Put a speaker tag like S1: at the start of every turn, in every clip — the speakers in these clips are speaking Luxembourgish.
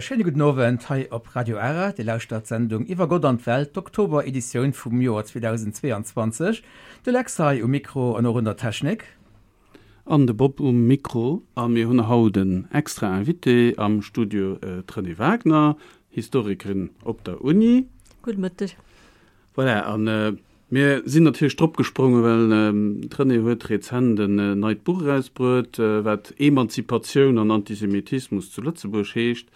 S1: Schéine gudden Owend hei op Radio Ara. Dir lauschtert d'Sendung Iwwer Gott an d'Welt, d'Oktober-Editioun vum Joer 2022. De Lex hei um Mikro an och un der Technik.
S2: An de Bob um Mikro. A mir hunn haut en extra Invité am Studio, d'Renée Wagner, Historikerin op der Uni.
S3: Gudde Mëtteg.
S2: Voilà, a mir sinn natierlech drop gesprongen, well d'Renée huet rezent en neit Buch erausbruet, wat Emanzipatioun an Antisemitismus zu Lëtzebuerg heescht.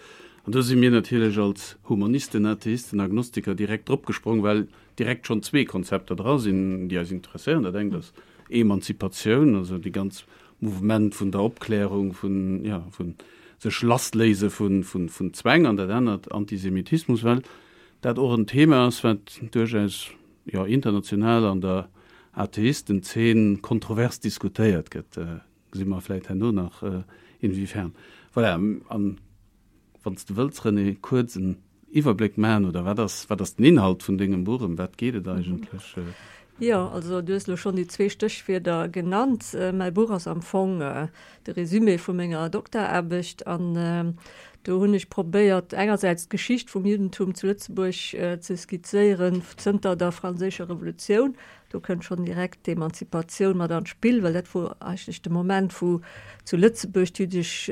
S2: An do si mir natierlech als Humanisten, Atheisten, Agnostiker direkt drop gesprong, well direkt schonn zwee Konzepter dra sinn, déi eis interesséieren. Dat engt ass Emanzipatioun, also déi ganz Mouvement vun der Opklärung, vun, jo, vu sech lassléise vun Zwäng, an dat anert Antisemitismus, well dat och en Thema ass, wat duerchaus, jo, international an der Atheistenzeen kontrovers diskutéiert gëtt. Gesi mer vläit herno nach inwiefern. Voilà, an wann s de wëlls, René, kuerz en Iwwerbléck maachen, oder wat ass, wat ass den Inhalt vun dengem Buch, ëm wat geet et eigentlech?
S3: Jo, also du hues elo schonn déi zwee Stéchwierder genannt. Mäi Buch ass am Fong de Résumé vu menger Dokteraarbecht an do hunn ech probéiert, engersäits d'Geschicht vum Juddentum zu Lëtzebuerg ze skizzéieren zënter der Franséischer Revolutioun, Do kënnt schonn direkt d'Emanzipatioun mat an d'Spill, well dat wor eigentlech de Moment, wou zu Lëtzebuerg d'jüddesch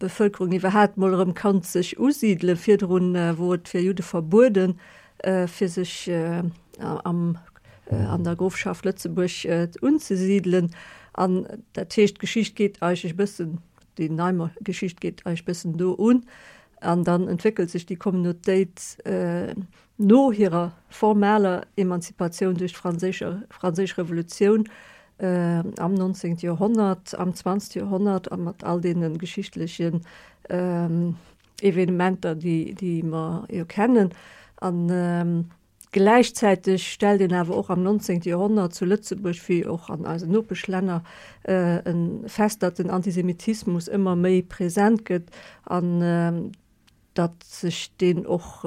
S3: Bevëlkerung iwwerhaapt mol erëm konnt sech usidelen. Virdrun wor et fir Judde verbueden, fir sech am, an der Grofschaft Lëtzebuerg unzesidelen. An dat heescht, d'Geschicht geet eigentlech e bëssen, déi nei Geschicht geet eigentlech e bëssen do un. An dann entwéckelt sech déi Communautéit No hirer formaler Emanzipatioun duerch d'Franséisch Revolutioun am 19. Joerhonnert, am 20. Joerhonnert a mat all deene geschichtlechen Evenementer, déi mer jo kennen. A gläichzäiteg stellt een awer och am 19. Joerhonnert zu Lëtzebuerg, wéi och an eisen Nopeschlänner, fest, datt den Antisemitismus ëmmer méi present gëtt an datt sech deen och,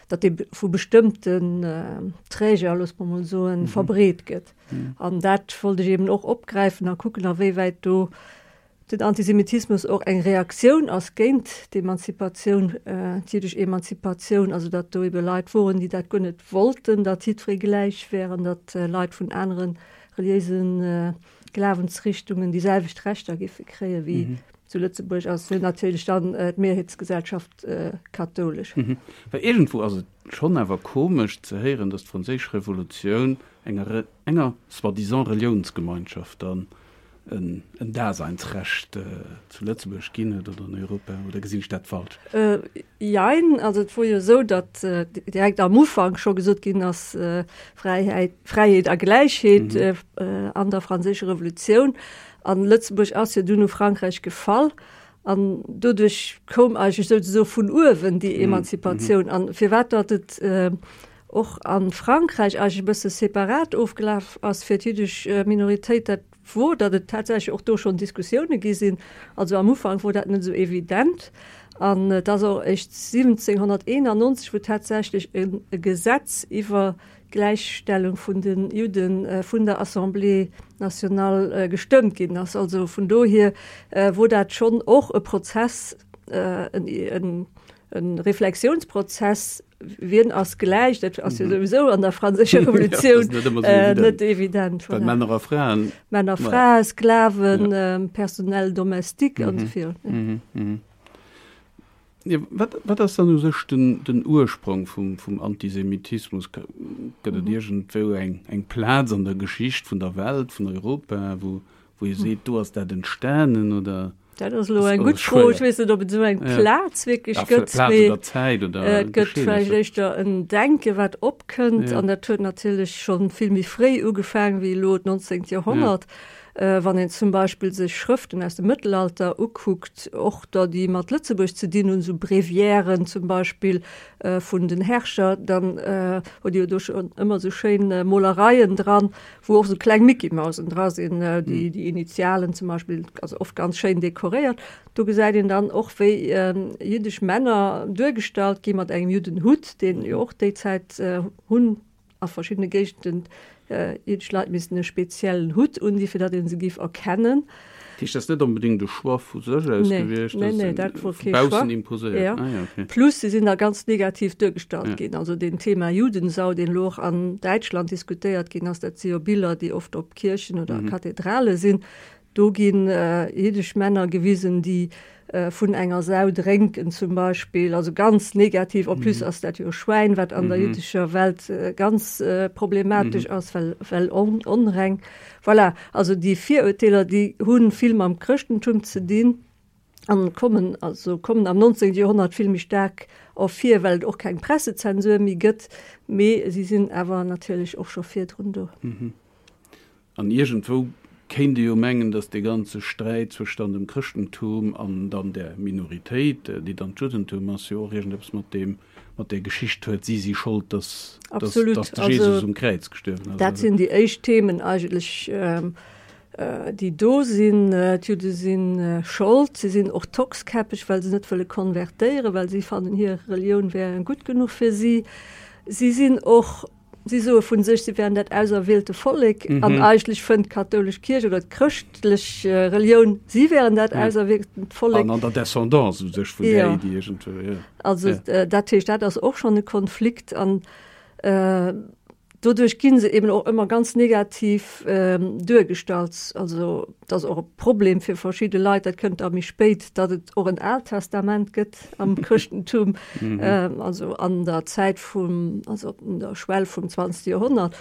S3: datt dee vu bestëmmten Träger, loosse mer mol soen, verbreet gëtt. An dat wollt ech eben och opgräifen a kucken, a wéi wäit do den Antisemitismus och eng Reaktioun ass géint d'Emanzipatioun, d'jiddesch Emanzipatioun, also datt do ebe Leit woren, déi dat guer net wollten, datt jiddweree gläich wär an datt Leit vun anere reliéise Glawensrichtungen déi selwecht Rechter géife kréie wéi Zu Lëtzebuerg ass jo natierlech dann d'Mehrheetsgesellschaft kathoulesch.
S2: Well iergendwou ass et schonn awer komesch ze héieren, datt d'Franséisch Revolutioun enger enger soi-disant Reliounsgemeinschaft dann en Daseinsrecht zu Lëtzebuerg ginn huet oder an Europa. Oder gesinn ech dat falsch?
S3: Jein. Also et wor jo esou, datt direkt am Ufank scho gesot ginn ass, Fräiheit, Fräiheet a Gläichheet an der Franséischer Revolutioun. An Lëtzebuerg ass jo dunn u Frankräich gefall an doduerch koum eigentlech souzesoe vun uewen déi Emanzipatioun. An firwat datt et och a Frankräich eigentlech e bësse separat ofgelaf ass fir d'jüddesch Minoritéit, dat wor, datt et tatsächlech och do schonn Diskussioune gi sinn. Also am Ufank wor dat net esou evident. An et ass och eréischt 1791, wou tatsächlech e Gesetz iwwer Gläichstellung vun de Judde vun der Assemblée nationale gestëmmt ginn ass. Also vun dohier wor dat schonn och e Prozess, e Reflexiounsprozess, wien ass gläich, dat ass jo souwisou an der franséischer Revolutioun net evident.
S2: Well Männer a Fraen.
S3: Männer, Frae, Sklaven, Personnel domestique an esou virun.
S2: Jo, wat, wat ass dann u sech den, den Ursprong vum, vum Antisemitismus? Gëtt et iergendwou eng, eng Plaz an der Geschicht vun der Welt, vun Europa, wou, wou ee seet, do ass dat entstanen, oder?
S3: Dat ass elo eng gutt Fro. Ech weess net, ob et esou eng Plaz wierklech gëtt.
S2: Plaz oder Zäit oder
S3: Et gëtt vläicht éischter en Denke wat opkënnt. An dat huet natierlech scho vill méi fréi ugefaangen wéi elo d'nonzéngt Joerhonnert. Wann een zum Beispill sech Schrëften aus dem Mëttelalter ukuckt, och der, déi mat Lëtzebuerg ze dinn hunn, esou Breviairen zum Beispill vun den Herrscher, dann huet Dir jo do schonn ëmmer esou schéin Molereien dran, wou och esou kleng Mickey-Mausen dra sinn, déi déi Initialen zum Beispill, also oft ganz schéin dekoréiert. Do gesäit een dann och, wéi jiddesch Männer duergestallt gi mat engem Juddenhutt, deen jo och déi Zäit hunn A verschiddene Géigenden jiddesch Leit missten e speziellen Hutt undinn, fir datt ee se géif erkennen.
S2: Dat heescht, dat ass net onbedéngt e Choix vu sech aus gewiescht,
S3: Nee, nee, dat wor kee Choix.
S2: Baussen imposéiert.
S3: Ja. Ah, ja, okay. Plus si sinn da ganz negativ duergestallt ginn. Also deen Thema Judensau, deen elo och an Däitschland diskutéiert ginn ass, dat si jo Biller, déi oft op Kierchen oder Kathedrale sinn. Do ginn jiddesch Männer gewisen, déi vun enger Sau drénken zum Beispill, also ganz negativ. En plus ass dat jo e Schwäin, wat an der jiddescher Welt ganz problematesch ass, well well onreng. Voilà, also déi Virurteeler, déi hu vill mam Chrëschtentum ze dinn an kommen also kommen am 19. Joerhonnert vill méi staark ervir, well et och keng Pressezensur méi gëtt, mee si sinn awer natierlech och scho virdrun do.
S2: An iergendwou kéint ee jo mengen, datt dee ganze Sträit zwëscht dann dem Chrëschtentum an dann där Minoritéit, déi dann d'Juddentum ass, jo och iergendeppes mat deem, mat där Geschicht huet, si si Schold, datt, datt, datt de Jesus um Kräiz gestuerwen ass.
S3: Dat sinn déi éischt Themen eigentlech, déi do sinn. D'Judde si Schold, si sinn och tockskäppeg, well se net wëlle konvertéieren, well si fannen, hir Relioun wär gutt genuch fir si. Si sinn och Si soe vu sech, si wären dat auserwielte Vollek, an eigentlech fënnt d'kathoulesch Kierch oder d'chrëschtlech Relioun, si wären dat auserwieltent Vollek.
S2: An an der Descendance u sech vun där Iddi iergendwou, jo.
S3: Also dat heescht, dat ass och schonn e Konflikt an doduerch gi se eben och ëmmer ganz negativ duergestallt. Also et ass och e Problem fir verschidde Leit, dat kënnt da méi spéit, datt et och en Aalt Testament gëtt. am Chrëschtentum, also an der Zäit vum, also un der Schwell vum 20. Joerhonnert,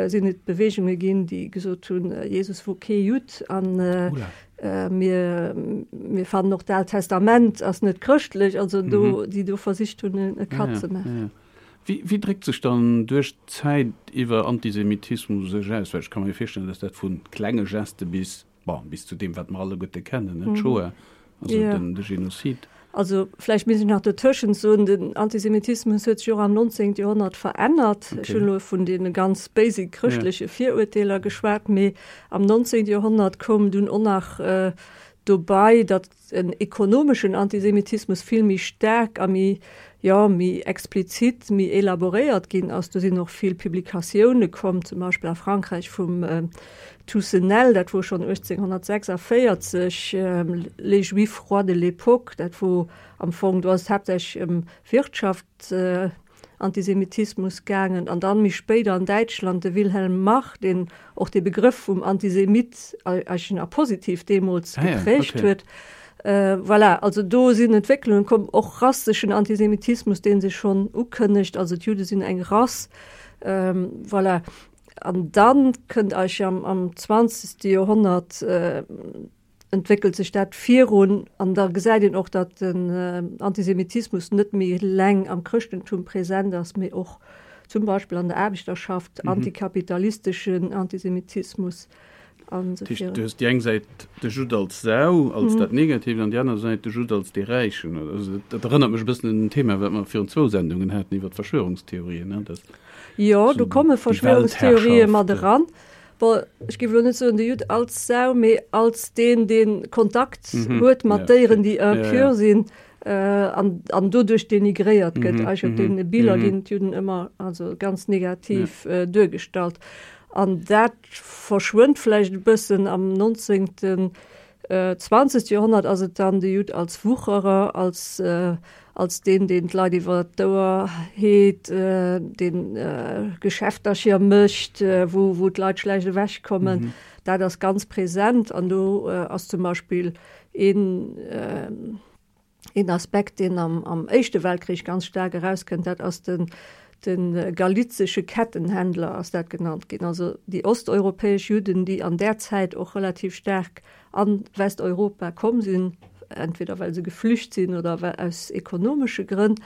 S3: sinn et Beweegunge ginn, déi gesot hunn, Jesus wor kee Judd an mir, mir fannen och d'Aalt Testament ass net chrëschtlech, also do, déi do versicht hunn, e Cut ze maachen.
S2: Wéi, wéi dréckt sech dann duerch d'Zäit iwwer Antisemitismus u sech aus? Well ech ka mer jo virstellen, dass dat vu klenge Geste bis Bon, bis zu deem, wat mer alleguerte kennen, ne, d'Shoah, also den, de Genozid.
S3: Also vläicht misst ech nach dotëschent soen, den Antisemitismus huet sech och am 19. Joerhonnert verännert. Ech hunn elo vun deene ganz basic chrëschtleche Virurteeler geschwat, mee am 19. Joerhonnert koum dunn och nach dobei, datt en ekonomeschen Antisemitismus vill méi staark a méi, jo, méi explizit, méi elaboréiert ginn ass. Do sinn och vill Publikatioune komm, zum Beispill a Frankräich vum Toussenel, dat wor schonn 1846, Les Juifs rois de l'époque, dat wor am Fong, do ass et haaptsächlech ëm Wirtschaft, Antisemitismus gaangen an dann méi spéider an Däitschland de Wilhelm Marr, deen och de Begrëff vum Antisemit eigentlech a positiv deemools geprägt huet. Voilà, also do sinn Entwécklungen komm, och rasseschen Antisemitismus, dee sech schonn ukënnegt, also d'Judde sinn eng Rass. Voilà, an dann kënnt eigentlech am zwanzegste Joerhonnert, entwéckelt sech dat virun an da gesäit een och, datt den Antisemitismus net méi eleng am Chrëschtentum present ass, mee och zum Beispill an der Aarbechterschaft, antikapitalisteschen Antisemitismus an esou virun.
S2: Du hues déi eng Säit de Judd als Sau, als dat Negatiivt, an déi aner Säit de Judd als dee Räichen. Also dat erënnert mech e bëssen un en Thema, wat mer virun zwou Sendungen haten iwwer d'Verschwörungstheorien, ne, dass
S3: Jo, do komme Verschwörungstheorië mat eran. Bon, ech géif elo net soen de Judd als Sau, mee als deen, dee Kontakt huet mat Déieren, déi impur sinn an, an doduerch denigréiert gëtt. Eigentlech op deene Biller ginn d'Judden ëmmer also ganz negativ duergestallt. An dat verschwënnt vläicht e bëssen am nonzéngten, zwanzegste Joerhonnert ass et dann de Judd als Wucherer, als als deen, deen d'Leit iwwer d'Ouer heet, deen Geschäftercher mécht, wou, wou d'Leit schlecht ewechkommen. Dat ass ganz present an do ass zum Beispill een, een Aspekt, deen am, am Éischte Weltkrich ganz staark erauskënnt, dat ass den, de galizesche Kettenhändler ass dat genannt ginn, also déi osteuropäesch Judden, déi an där Zäit och relativ staark a Westeuropa komm sinn, entweder well se geflücht sinn oder aus ekonomesche Grënn,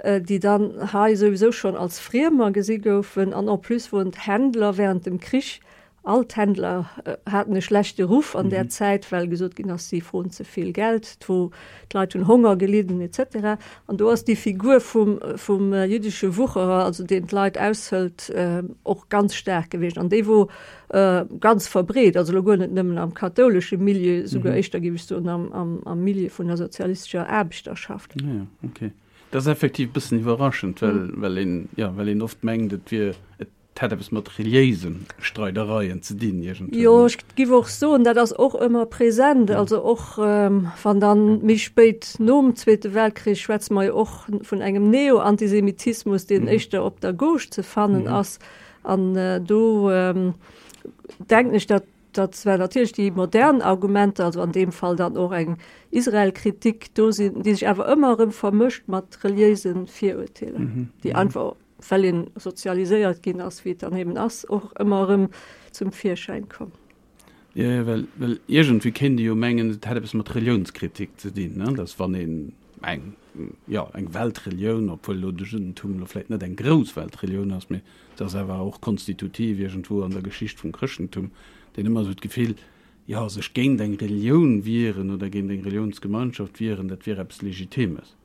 S3: déi dann hei souwisou schonn als Friemer gesi goufen. An en plus woren d'Händler während dem Krich, all d'Händler haten e schlechte Ruff an där Zäit, well gesot ginn ass, si froen ze vill Geld, d'Leit hunn Honger gelidden et cetera. An do ass déi Figur vum, vum jüddesche Wucherer, also deen d'Leit aushëlt, och ganz staark gewiescht. An déi wor Ganz verbreet, also elo guer net nëmmen am kathoulesche Milieu, souguer éischter, géif ech soen, am Milieu vun der sozialistescher Aarbechterschaft.
S2: Ah ja, okay. Dat ass effektiv e bëssen iwwerraschend, well, well een, jo, well een oft mengt, et wier, et Et hätt eppes mat reliéise Streidereien ze dinn
S3: iergendwéi. Jo, ech giff och soen, dat ass och ëmmer present. Also och wann dann méi spéit nom Zweete Weltkrich schwätze mer jo och vun engem Neo-Antisemitismus, deen éischter op der Gauche ze fannen ass. An do denken ech, datt datt zwar natierlech déi modern Argumenter, also an deem Fall dann och eng Israel-Kritik do sinn, déi sech awer ëmmer erëm vermëscht mat reliéise Virurteeler, déi einfach well een sozialiséiert ginn ass, wéi et dann eben ass, och ëmmer erëm zum Virschäin komm.
S2: Jo, jo, well, well iergendwéi kéint ee jo mengen, et hätt eppes mat Reliounskritik ze dinn, ne, dass wann een eng, jo, eng Weltrelioun, obwuel elo de Juddentum elo vläicht net eng grouss Weltrelioun ass, mee se ass awer och konstitutiv iergendwou an der Geschicht vum Chrëschtentum, deen ëmmer esou d'Gefill, jo, sech géint eng Relioun wieren oder géint eng Reliounsgemeinschaft wieren, dat wier eppes Legitimes.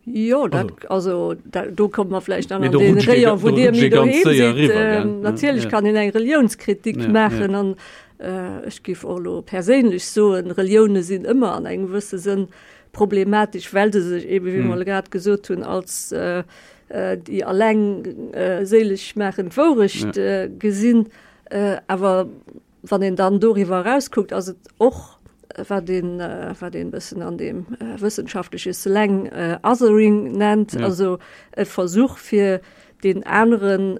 S3: Jo, dat, also dat, do komme mer vläicht dann an dee Rayon, wou Dir méi doheem sidd. Natierlech kann een eng Reliounskritik maachen an ech géif och elo perséinlech soen, Relioune sinn ëmmer an engem gewësse Sënn problematesch, well se sech eebe, wéi mer elo grad gesot hunn, als déi alleng séileg maachend Wourecht gesinn. Awer Wann een dann doriwwer erauskuckt, ass et och, wat een, wat een e bëssen an deem wëssenschaftleche Slang Othering nennt, also e Versuch fir deen aneren,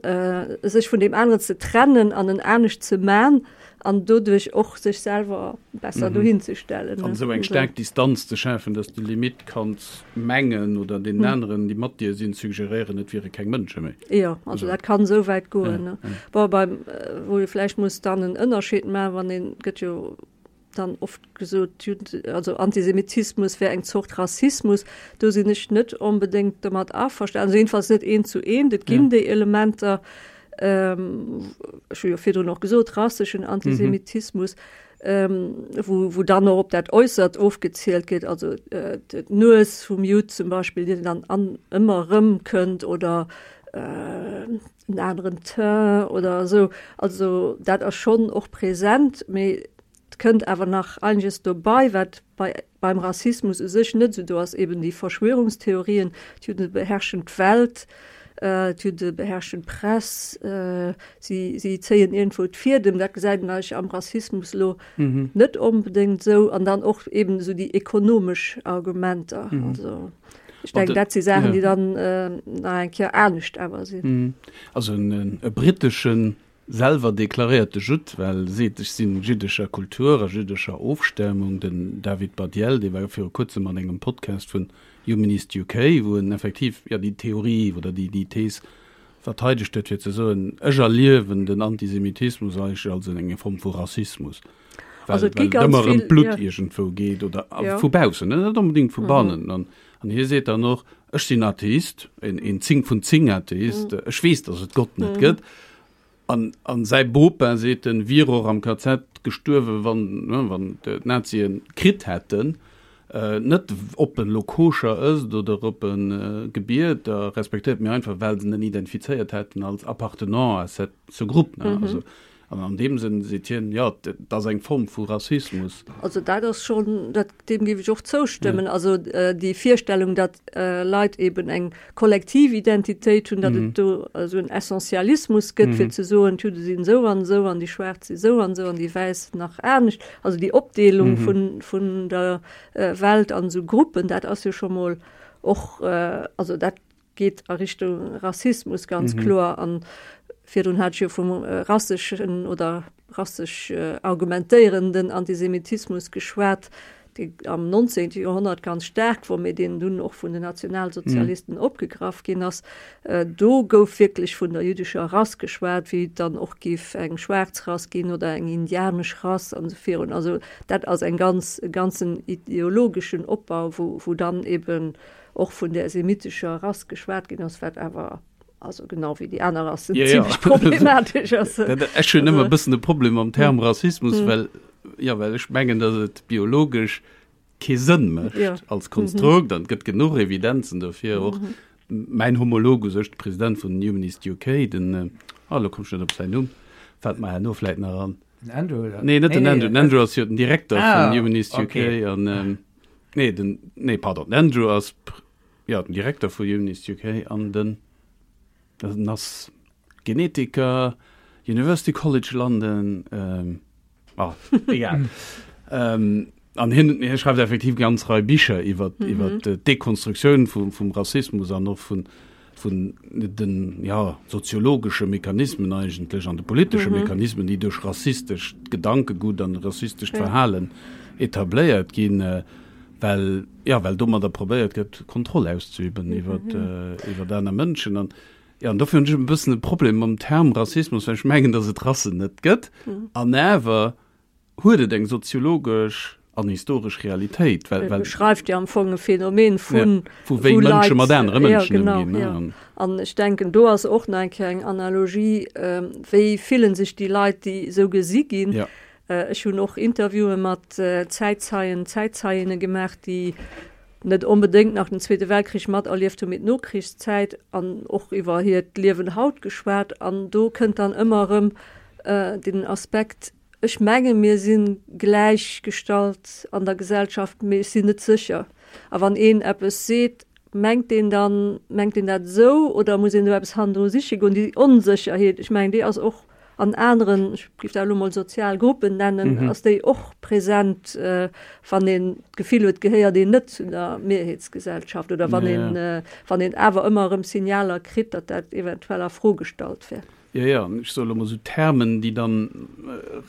S3: sech vun deem aneren ze trennen an en anescht ze man an doduerch och sech selwer besser dohin ze stellen.
S2: An esou eng staark Distanz ze schafen, dass de limite kanns mengen oder deenen aneren, déi mat dir sinn, suggeréieren, et wiere keng Mënsche méi.
S3: Jo, also dat kann esou wäit goen. Ne? Bon, beim, wou ee vläicht muss dann en Ënnerscheed maachen, wann een, gëtt jo dann oft gesot, d'Judden, also Antisemitismus wär eng Zort Rassismus. Do sinn ech net onbedéngt domat averstanen, also jedenfalls net eent zu eent. Et ginn déi Elementer, ech hu jo virdrun och gesot, rasseschen Antisemitismus, wou, wou dann och op dat Äussert ofgezielt gëtt, also d'Nues vum Judd zum Beispill, déi dann an ëmmer erëm kënnt oder en aneren Teint oder esou. Also dat ass schonn och present, mee et kënnt awer nach einiges dobei, wat bei beim Rassismus u sech net esou do ass, eben déi Verschwörungstheorien, d'Judde beherrschen d'Welt, d'Judde beherrschen d'Press, si, si zéien iergendwou d'Fiedem, dat gesäit een eigentlech am Rassismus elo net onbedéngt esou. An dann och eben esou déi ekonomesch Argumenter. Also ech denken, dat si Saachen, déi dann nach eng Kéier anescht awer sinn.
S2: Also e britteschen Selwer deklaréierte Judd, well e seet, ech sinn jiddescher Kultur a jiddescher Ofstamung. Den David Baddiel, dee war viru kuerzem an engem Podcast vun Humanist UK, wou en effektiv, jo, déi Theorie oder déi déi Thees verteidegt huet, fir ze soen, ech erliewen den Antisemitismus eigentlech als eng Form vu Rassismus, well
S3: Also et gi
S2: well et
S3: ganz
S2: ëmmer ëm
S3: vill,
S2: d'Blutt
S3: jo.
S2: iergendwou geet oder
S3: Jo.
S2: vu baussen, net onbedéngt vu bannen. An An hie seet dann och, Ech sinn Atheist, een, een 10 vun 10 Atheist, ech weess, datt et Gott net gëtt. An, an säi Bopa, seet en, wier och am KZ gestuerwen, wann, ne, wann d'Nazien kritt hätten. Net ob en elo koscher ësst oder ob en gebiet a respektéiert, mee einfach well se en identifizéiert hätten als appartenant à cette, ce groupe, ne. Also, An an deem Sënn seet hien, jo, et ass eng Form vu Rassismus.
S3: Also dat ass schonn, dat, deem géif ech och zoustëmmen. Also déi Virstellung, datt Leit eben eng kollektiv Identitéit hunn, datt et do esou en Essentialismus gëtt, fir ze soen, d'Judde sinn esou an esou an déi Schwaarz si esou an esou an déi Wäiss nach anescht. Also déi Opdeelung vun, vun der Welt an esou Gruppen, dat ass jo scho mol och, also dat geet a Richtung Rassismus ganz mhm. kloer an virdrun hat jo vum äh, rasseschen oder rassesch äh, argumentéierenden Antisemitismus geschwat, dee am 19. Joerhonnert ganz staark wor, mee deen dunn och vun den Nationalsozialisten mhm. opgegraff ginn ass. Äh, do gouf wierklech vun der jüdescher Rass geschwat, wéi et dann och giff eng schwaarz Rass ginn oder eng indianesch Rass an esou virun. Also dat ass eng ganz e ganzen ideologeschen Opbau, wou, wou dann eben och vun där semitescher Rass geschwat ginn ass, wat awer, also genau wéi déi aner Rassen,
S2: Ja, ja.
S3: zimmlech problematesch ass.
S2: Dat, ech hunn ëmmer e
S3: Also,
S2: bëssen e Problem mam Term Rassismus, well, ja, well ech mengen, datt et biologesch kee Sënn mécht
S3: Ja.
S2: als Konstrukt an et gëtt genuch Evidenzen dofir. Och mäin Homolog u sech, de President vun Humanist UK, den, ah, elo komm ech net op säin Numm, fält mer herno vläit nach an.
S1: Den Andrew, oder?
S2: Nee, net den Andrew. Den Andrew ass jo den Direkter
S1: Ah,
S2: vun Humanist UK
S1: okay.
S2: an, ähm, Nee, den, nee, pardon, den Andrew ass ja, den Direkter vu Humanist UK an den, den ass. Genetiker, University College London, ah, egal. An hien, hie schreift effektiv ganz Rei Bicher iwwer, iwwer d'Dekonstruktioun vum, vum Rassismus an och vun, vun den, ja, soziologesche Mechanismen eigentlech an de politesche Mechanismen, déi duerch rassistescht Gedankegut an rassistescht Verhalen etabléiert ginn, well, ja, well domadder probéiert gëtt, Kontroll auszeüben iwwer, iwwer aner Mënschen. An, ja, an dofir hunn ech e bëssen e Problem mam Term Rassismus, well ech mengen, datt et Rassen net gëtt. An awer huet et eng soziologesch an historesch Realitéit,
S3: well, well. Beschreift jo am Fong e Phänomen vun.
S2: Ja, vu wéi Mënsche mat anere Mënschen
S3: ëmginn. Ja, genau, ja. An ech denken, do ass och nach eng Kéier eng Analogie, wéi fillen sech déi Leit, déi esou gesi ginn.
S2: Ja.
S3: Ech hunn och Interviewe mat Zäitzeien, Zäitzeiinne gemaach, déi net onbedéngt nach den Zweete Weltkrich materlieft hunn, mee d'Nokrichszäit an och iwwer hiert Liewen haut geschwat. An do kënnt dann ëmmer erëm den Aspekt, Ech menge mir si gläichgestallt an der Gesellschaft, mee ech sinn net sécher. A wann een eppes seet, mengt deen dann, mengt deen dat esou oder muss een do eppes hannendru siche goen? Déi Onsécherheet, ech mengen déi ass och an aneren, ech géif dat elo mol sozial Gruppen nennen, ass déi och present, wann een d'Gefill huet, gehéiert een net zu der Mehrheetsgesellschaft oder wann een, wann een awer ëmmer erëm Signaler kritt, datt dat eventuell a Fro gestallt wär.
S2: Jo, jo, ech soe lo mol esou Termen, déi dann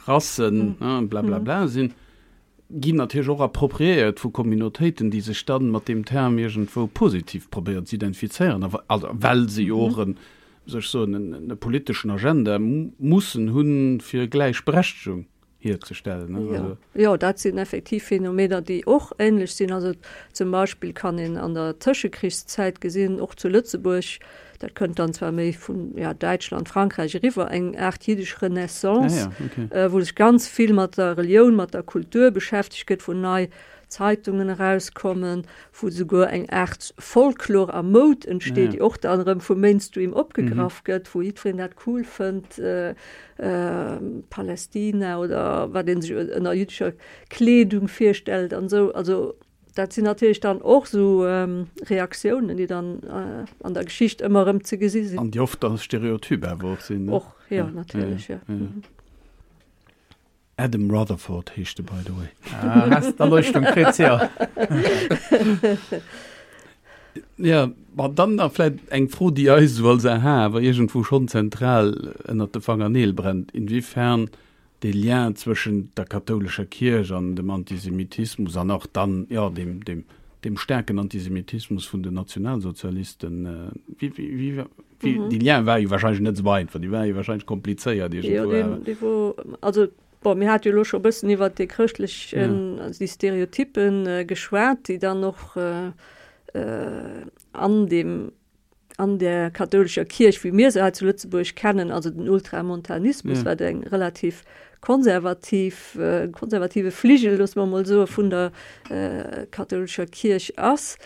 S2: Rassen, blablabla sinn, ginn natierlech och appropriéiert vu Communautéiten, déi sech dann mat deem Term iergendwou positiv probéieren ze identifizéieren, a also well se jo och en, wéi soll ech soen, en e politeschen Agenda mussen hunn, fir Gläichberechtegung hierzestellen.
S3: Ne? Ja. Also. Jo, dat sinn effektiv Phänomener, déi och ähnlech sinn. Also zum Beispill kann een an der Tëschekrichszäit gesinn, och zu Lëtzebuerg, dat kënnt dann zwar méi vun ja, Däitschland, Frankräich eriwwer, eng Aart jiddesch Renaissance, ja, ja, okay. äh, wou sech ganz vill mat der Relioun, mat der Kultur beschäftegt gëtt, wou nei Zeitungen erauskommen, wou souguer eng Aart Folklor a Moud entsteet, ja. déi och dann erëm vum Mainstream opgegraff mhm. gëtt, wou jiddwereen dat cool fënnt. Äh, Palästina oder wat een sech ënner jüddescher Kleedung virstellt an esou. Also dat sinn natierlech dann och esou Reaktiounen, déi dann an der Geschicht ëmmer erëm ze gesi
S2: sinn. An déi oft dann stereotyp awer och sinn,
S3: ne? Och, jo, natierlech, jo.
S2: Adam Rutherford heescht de by the way.
S1: Ah, hast d'Erleuchtung kritt, jo.
S2: Ja, ma dann nach vläit eng Fro, déi eis esou als AHA awer iergendwou schonn zentral ënnert de Fangerneel brennt, Inwiefern dee Lien zwëschent der kathoulescher Kierch an dem Antisemitismus an och dann, jo, deem, deem, deem staarken Antisemitismus vun den Nationalsozialisten, wéi, wéi, wéi, wéi, dee Lien war jo wahrscheinlech net esou einfach, dee war jo wahrscheinlech komplizéiert
S3: iergendwou. Jo, deen, dee wor, also Bon, mir hate jo elo scho e bëssen iwwert dee chrëschtlechen, also déi Stereotyppen geschwat, déi dann och an deem, an där kathoulescher Kierch, wéi mir se hei zu Lëtzebuerg kennen, also den Ultramontanismus, wat eng relativ konservativ, konservative Fligel, loosse mer emol soe, vun der kathoulescher Kierch ass.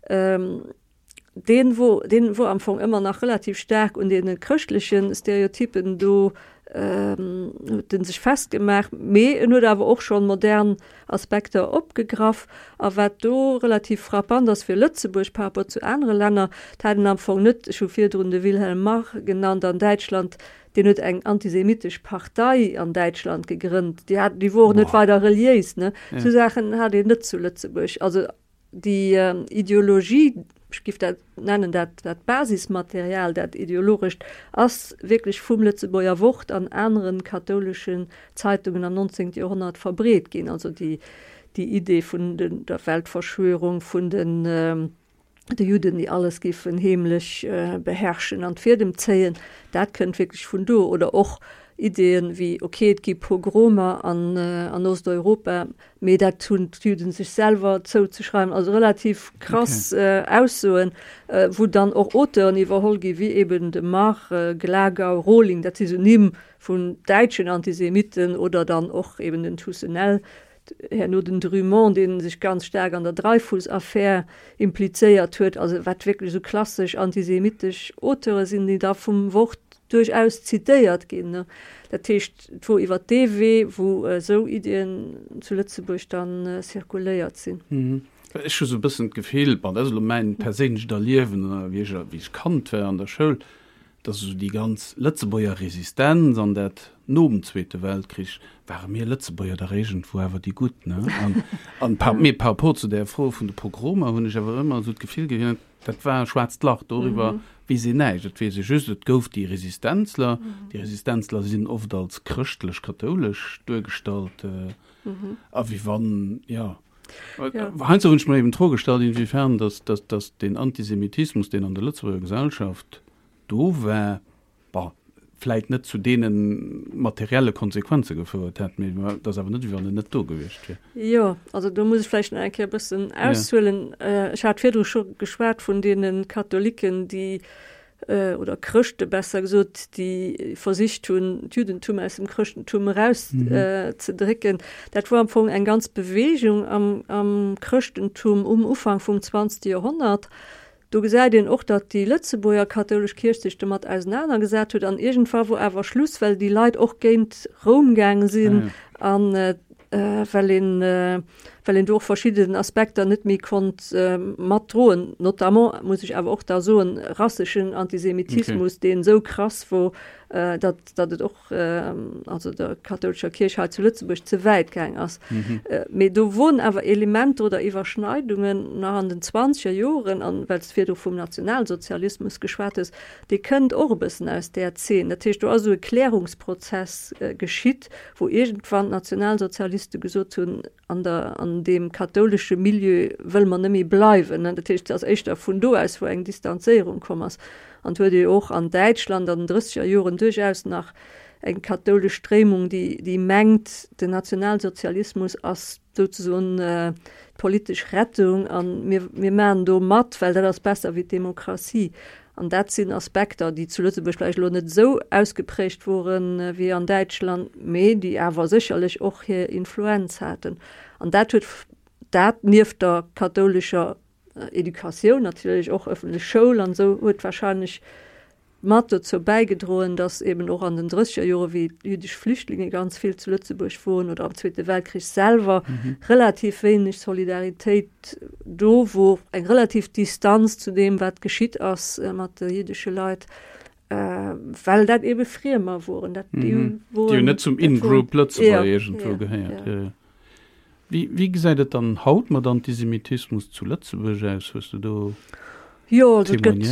S3: Deen wor, deen wor am Fong ëmmer nach relativ staark un deene chrëschtleche Stereotypen do, huet en sech festgemaach, mee en huet awer och schonn modern Aspekter opgegraff. A wat do relativ frappant ass fir Lëtzebuerg par rapport zu anere Länner, dat hat en am Fong net, ech hu virdrun de Wilhelm Marr genannt an Däitschland, deen huet eng antisemitesch Partei an Däitschland gegrënnt, déi hat, déi wor och net weider reliéis, ne. Sou Saachen hat een net zu Lëtzebuerg. Also Déi Ideologie, ech géif dat nennen, dat dat Basismaterial, dat ideologescht, ass wierklech vum Lëtzebuerger Wort an anere kathouleschen Zeitungen am 19. Joerhonnert verbreet ginn. Also déi déi Idee vun der Weltverschwörung, vun den de Judden, déi alles géifen heemlech beherrschen an d'Fiedem zéien, dat kënnt wierklech vun do. Oder och Ideeën wéi, ok, et gi Pogromer an an Osteuropa, Mee dat hunn d'Juden sech selwer zouzeschreiwen. Also relativ krass okay. Aussoen, wou dann och Auteuren iwwerholl gi wéi eben de Marr, Glagau, Rohling, dat si sou Nimm vun däitschen Antisemitten oder dann och eben den Toussenel, herno den Drumont, dee sech ganz staark an der Dreyfus-Affär implizéiert huet. Also wat wierklech esou klassesch antisemitesch Auteure sinn, déi da vum Wort duerchaus zitéiert ginn. Dat heescht, et wor iwwer dee Wee, wou esou Iddien zu Lëtzebuerg dann zirkuléiert sinn.
S2: Ech hu sou e bëssen d'Gefill, bon, dat ass elo mäin perséinlecht Erliewen, wéi ech, wéi ech Kand war an der Schoul. Dass esou déi ganz Lëtzebuerger Resistenz an dat nom Zweete Weltkrich, ware mir Lëtzebuerger dach iergendwou awer déi Gutt, ne? An, an par, mee par rapport zu där Fro vun de Pogromer hunn ech awer ëmmer esou d'Gefill gehat, dat war e schwaarzt Lach, doriwwer weess een näischt. Et weess ee just, et gouf déi Resistenzler. Déi Resistenzler sinn oft als chrëschtlech-kathoulesch duergestallt, a wéi wann, jo. Heiansdo hunn ech mer eben d'Fro gestallt, inwiefern dass, dass, dass deen Antisemitismus, deen an der Lëtzebuerger Gesellschaft do war, bon, vläit net zu deene materielle Konsequenze gefouert hätt, mee et ass awer net, wéi wann en net do gewiescht wier.
S3: Jo, also do muss ech vläicht nach eng Kéier e bëssen aushuelen. Ech hat virdru scho geschwat vun deene Katholiken, déi oder Chrëschte besser gesot, déi versicht hunn, d'Juddentum aus dem Chrëschtentum eraus ze drécken. Dat wor am Fong eng ganz Beweegung am, am Chrëschtentum um Ufank vum zwanzegste Joerhonnert. Do gesäit een och, datt déi Lëtzebuerger kathoulesch Kierch sech domat ausenanergesat huet an iergendwa wor awer Schluss, well déi Leit och géint Roum gaange sinn an well een, well een do och verschidden Aspekter net méi konnt matdroen, notamment, muss ech awer och da soen, rasseschen Antisemitismus, deen esou krass wor, datt, datt et och, also der kathoulescher Kierch hei zu Lëtzebuerg ze wäit gaang ass. Mee do woren awer Elementer oder Iwwerschneidungen nach an den zwanzeger Joren, an well s de virdru vum Nationalsozialismus geschwat hues, dee kënnt och e bëssen aus där Zeen. Dat heescht, do ass esou e Klärungsprozess geschitt, wou iergendwann d'Nationalsozialiste gesot hunn, an der, an deem kathoulesche Milieu wëlle mer net méi bleiwen. Dat heescht, et ass éischter vun do aus, wou eng Distanzéierung komm ass. An et huet ee jo och an Däitschland an den drësseger Joren duerchaus nach eng kathoulesch Stréimung, déi, déi mengt, den Nationalsozialismus ass souzesoen d'politesch Rettung a mir, mir maachen do mat, well dat ass besser wéi d'Demokratie. An dat sinn Aspekter, déi zu Lëtzebuerg vläicht elo net esou ausgeprägt woren wéi an Däitschland, mee déi awer sécherlech och hir Influenz haten. An dat huet dat, nieft der kathoulescher Educatioun natierlech, och ëffentlech Schoul an esou, huet wahrscheinlech mat dozou bäigedroen, datt eben och an den drësseger Jore wéi jüddesch Flüchtlinge ganz vill zu Lëtzebuerg woren oder am Zweete Weltkrich selwer relativ wéineg Solidaritéit do wor, eng relativ Distanz zu deem wat geschitt ass mat de jiddesche Leit, well dat ebe Friemer woren, dat
S2: déi woren. Déi hunn net zum In-Group Lëtzebuerger iergendwou gehéiert. Jo, jo. Wéi, wéi gesäit et dann haut mat Antisemitismus zu Lëtzebuerg aus? Hues du do
S3: Jo, also et gëtt,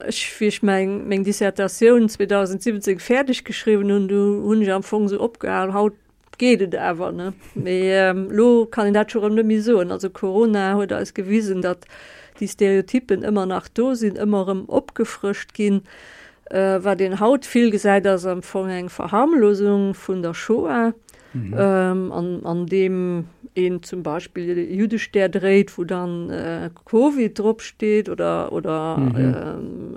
S3: ech, wéi ech meng, meng Dissertatioun 2017 fäerdeg geschriwwen hunn, du hunn ech am Fong esou opgehal, haut geet et awer, ne? Mee elo kann een dat scho rëm net méi soen. Also Corona huet eis gewisen, datt déi Stereotyppen ëmmer nach do sinn, ëmmer erëm opgefrëscht ginn. Wat een haut vill gesäit, ass am Fong eng Verharmlosung vun der Shoah, an, an deem een zum Beispill e Juddestär dréit, wou dann Covid drop steet oder, oder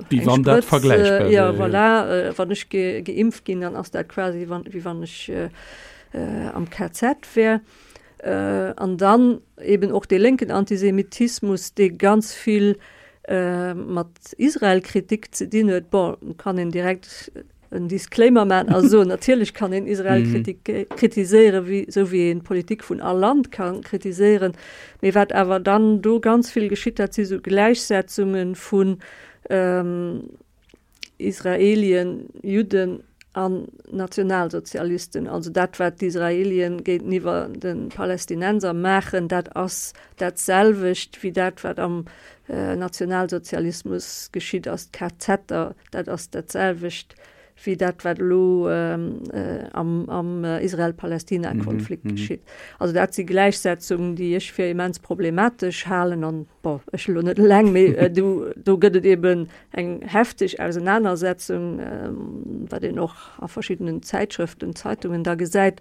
S2: Wéi wann dat vergläichbar
S3: wär. Ja, voilà, wann ech ge, geimpft ginn, dann ass dat quasi wann, wéi wann ech am KZ wär. An dann eben och dee lénken Antisemitismus, dee ganz vill mat Israel-Kritik ze dinn huet. Bon, kann een direkt en Disclaimer maachen a soen, natierlech kann een Israel kritiséieren, wéi, esou wéi een d'Politik vun all Land ka kritiséieren. Mee wat awer dann do ganz vill geschitt, dat si sou Gläichsetzunge vun Israelien, Judden an Nationalsozialisten. Also dat, wat d'Israelien géinteniwwer de Palästinenser maachen, dat ass dat selwecht wéi dat, wat am Nationalsozialismus geschitt ass, d'KZer. Dat ass dat selwecht wéi dat, wat elo am Israel-Palästina-Konflikt geschitt. Also dat si Gläichsetzungen, déi ech fir immens problematesch halen. An, bon, ech elo net eleng, mee do, do gëtt et eben eng hefteg Ausenanersetzung, wat een och a verschiddenen Zäitschrëften, Zeitungen da gesäit.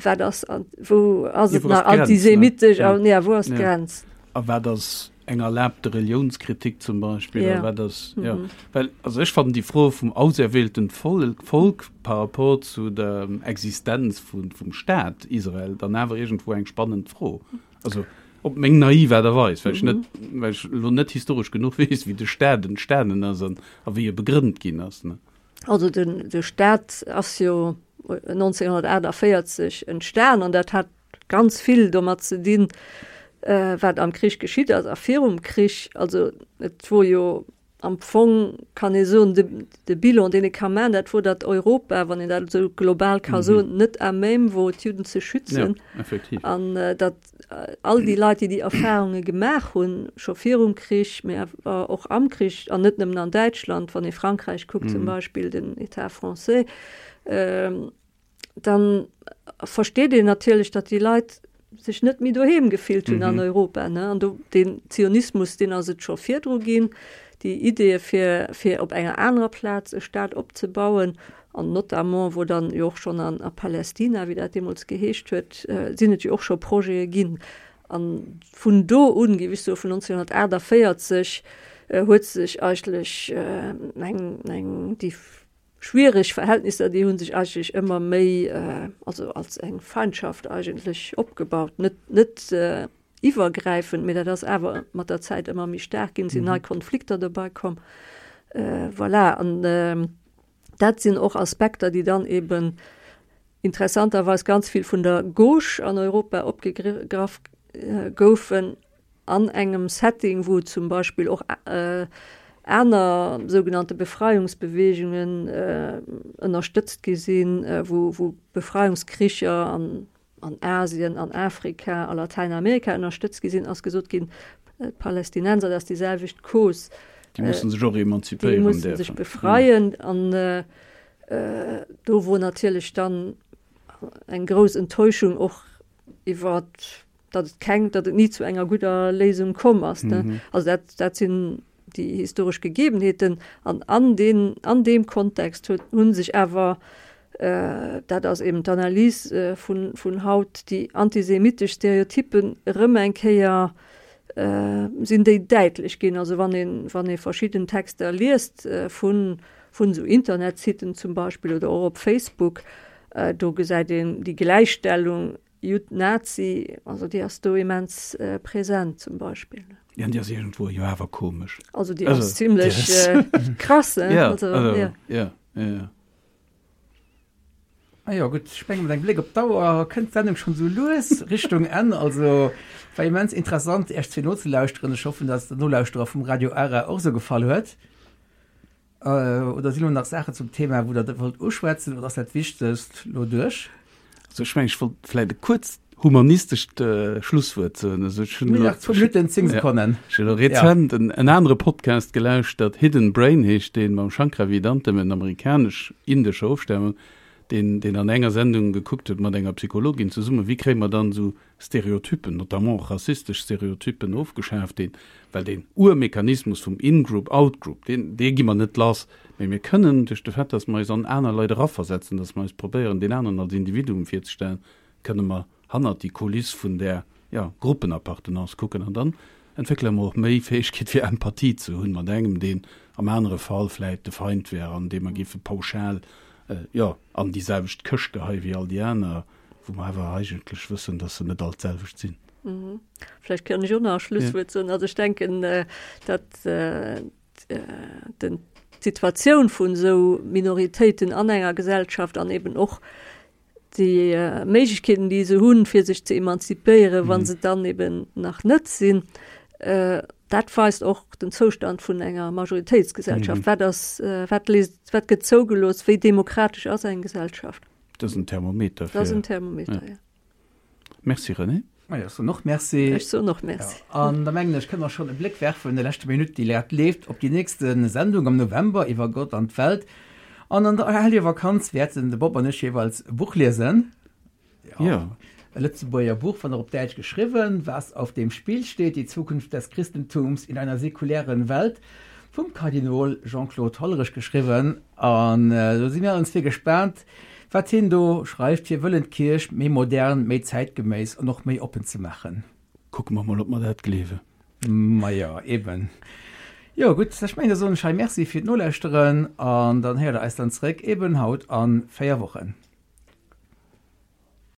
S3: Wat ass, wou ass et nach antisemitesch an ja, wou ass d'Grenz?
S2: A wat ass eng erlaabte Reliounskritik zum Beispill? Ja. Wat ass, ja. Mhm. Well, also ech fannen déi Fro vum auserwählten Volk par rapport zu der Existenz vun, vum Staat Israel dann awer iergendwou eng spannend Fro. Also op meng naiv Aart a Weis, well ech net, well ech elo net historesch genuch weess, wéi de Staat entstanen ass an a wéi e begrënnt ginn ass, ne.
S3: Also den, de Staat ass jo 1948 entstan an dat hat ganz vill domat ze dinn, wat am Krich geschitt ass a virum Krich. Also et wor jo. Am Fong kann ee soen, de, de Bilan, deen ee ka maachen, dat wor, datt Europa, wann een dat esou global ka soen, net à même wor, d'Judden ze schützen.
S2: Ja, effektiv.
S3: An datt all déi Leit, déi déi Erfahrunge gemaach hunn, scho virum Krich, mee awer och am Krich, an net nëmmen an Däitschland, wann ee Frankräich kuckt zum Beispill, den État français, dann versteet een natierlech, datt déi Leit sech net méi doheem gefillt hunn an Europa. Ne? An do den Zionismus, deen ass et scho virdru ginn, déi Ideeë fir, fir op enger anerer Plaz e Staat opzebauen, an notamment wou dann jo och schonn an a Palästina, wéi dat deemools geheescht huet, sinn et jo och scho Projete ginn. An vun do un, géif ech soen, vun 1948, huet sech eigentlech eng, eng déi Schwiereg Verhältnisser, déi hu sech eigentlech ëmmer méi, also als eng Feindschaft eigentlech opgebaut. Net, net iwwergräifend, mee dat ass awer mat der Zäit ëmmer méi staark ginn, sinn nei Konflikter dobäi komm. Voilà, an dat sinn och Aspekter, déi dann eben interessanterweis ganz vill vun der Gauche an Europa opgegraff goufen, An engem Setting, wou zum Beispill och aner sougenannte Befreiungsbeweegungen ënnerstëtzt gi sinn, wou Befreiungskricher an Asien, an Afrika, a Latäinamerika ënnerstëtzt gi sinn, ass gesot ginn, d'Palästinenser, dat ass déi selwecht Cause.
S2: Déi musse sech och emanzipéieren
S3: däerfen. Déi musse sech befreien. An do wor natierlech dann eng grouss Enttäuschung och iwwer datt et keng, datt et ni zu enger gudder Léisung komm ass. Ne? Mhm. Also dat, dat sinn déi historesch Gegebenheeten an an den, an deem Kontext huet, hunn sech awer, äh, dat ass eben d'Analys äh, vun, vun haut, déi antisemitesch Stereotypen erëm eng Kéier äh, sinn déi däitlech ginn. Also wann een, wann ee verschidden Texter liest äh, vun, vun esou Internetsiten zum Beispill oder och op Facebook, äh, do gesäit een déi Gläichstellung Judd, Nazi, also déi ass do immens präsent zum Beispill.
S2: Ja, an déi ass iergendwou jo awer komesch.
S3: Also déi ass zimlech krass,
S2: ne? Ja, also, ja. Ja, ja, ja.
S1: Ah jo, gutt, ech menge mat engem Bléck op d'Auer kënnt d'Sendung schonn esou lues Richtung Enn. Also war immens interessant Iech zwee nozelauschteren. Ech hoffen, dass et den Nolauschterer vum Radio Ara och esou gefall huet. Oder sinn elo nach Saachen zum Thema, wou Der wollt uschwätzen, oder ass dat Wichtegst elo duerch?
S2: Also ech mengen, ech wollt vläicht e kuerzt humanistescht Schlusswuert soen. Also ech hunn
S1: elo, Nach zwou Minutten, zéng Sekonnen.
S2: Ech hunn elo rezent en anere Podcast gelauschtert, Hidden Brain heescht deen, mam Shankar Vedantam, en amerikanesch-indescher Ofstamung, deen, deen an enger Sendung gekuckt huet mat enger Psychologin zesummen, wéi kréie mer dann esou Stereotypen, notamment och rassistesch Stereotypen, ofgeschaaft deen, well deen Urmechanismus vum In-Group, Out-Group, deen, dee gi mer net lass, mee mir kënnen duerch de Fait, dass mer eis an aner Leit eraversetzen, dass mer eis probéieren, deen aneren als Individuum virzestellen, kënne mer hannert déi Kuliss vun där, jo, Gruppenappartenance kucken an dann entwéckele mer och méi Fäegkeet fir Empathie ze hunn mat engem, deen am anere Fall vläit de Feind wär an dee mer géife pauschal, jo, an déi selwecht Këscht geheie wéi all déi aner. Wou mer awer eigentlech wëssen, dass se net all d'selwecht sinn.
S3: Vläicht kann ech och nach e Schlusswuert soen. Also ech denken, datt d'Situatioun vun esou Minoritéiten an enger Gesellschaft an eben och déi Méiglechkeeten, déi se hunn, fir sech ze emanzipéieren, wa se dann eben nach net sinn, dat weist och den Zoustand vun enger Majoritéitsgesellschaft. Wat ass, wat léisst, wat gëtt zougelooss, wéi demokratesch ass eng Gesellschaft?
S2: Dat ass en Thermometer.
S3: Dat ass en Thermometer, ja.
S2: Merci René.
S1: Ma jo, ech soen och Merci.
S3: Ech soen och Merci.
S1: Ja, an da mengen ech, kënne mer schonn e Bléck werfen, de leschte Minutt, déi grad leeft, op déi nächste Sendung am November iwwer Gott an d'Welt. An an der Hellege Vakanz wäerten de Bob an ech jeeweils e Buch liesen.
S2: Ja.
S1: E Lëtzebuerger Buch, wann och op Däitsch geschriwwen, Was auf dem Spiel steht, die Zukunft des Christentums in einer säkulären Welt, vum Kardinol Jean-Claude Hollerich geschriwwen. An do si mir allen zwee gespaant, wat hien do schreift, fir wëllen d'Kierch méi modern, méi zäitgeméiss an och méi oppen ze maachen.
S2: Kucke mer mol, ob mer dat gleewen.
S1: Majo, eben. Jo, gutt, ech mengen, da soen ech hei Merci fir d'Nolauschteren an dann héiert Der eis dann zréck, eben haut a 4 Wochen.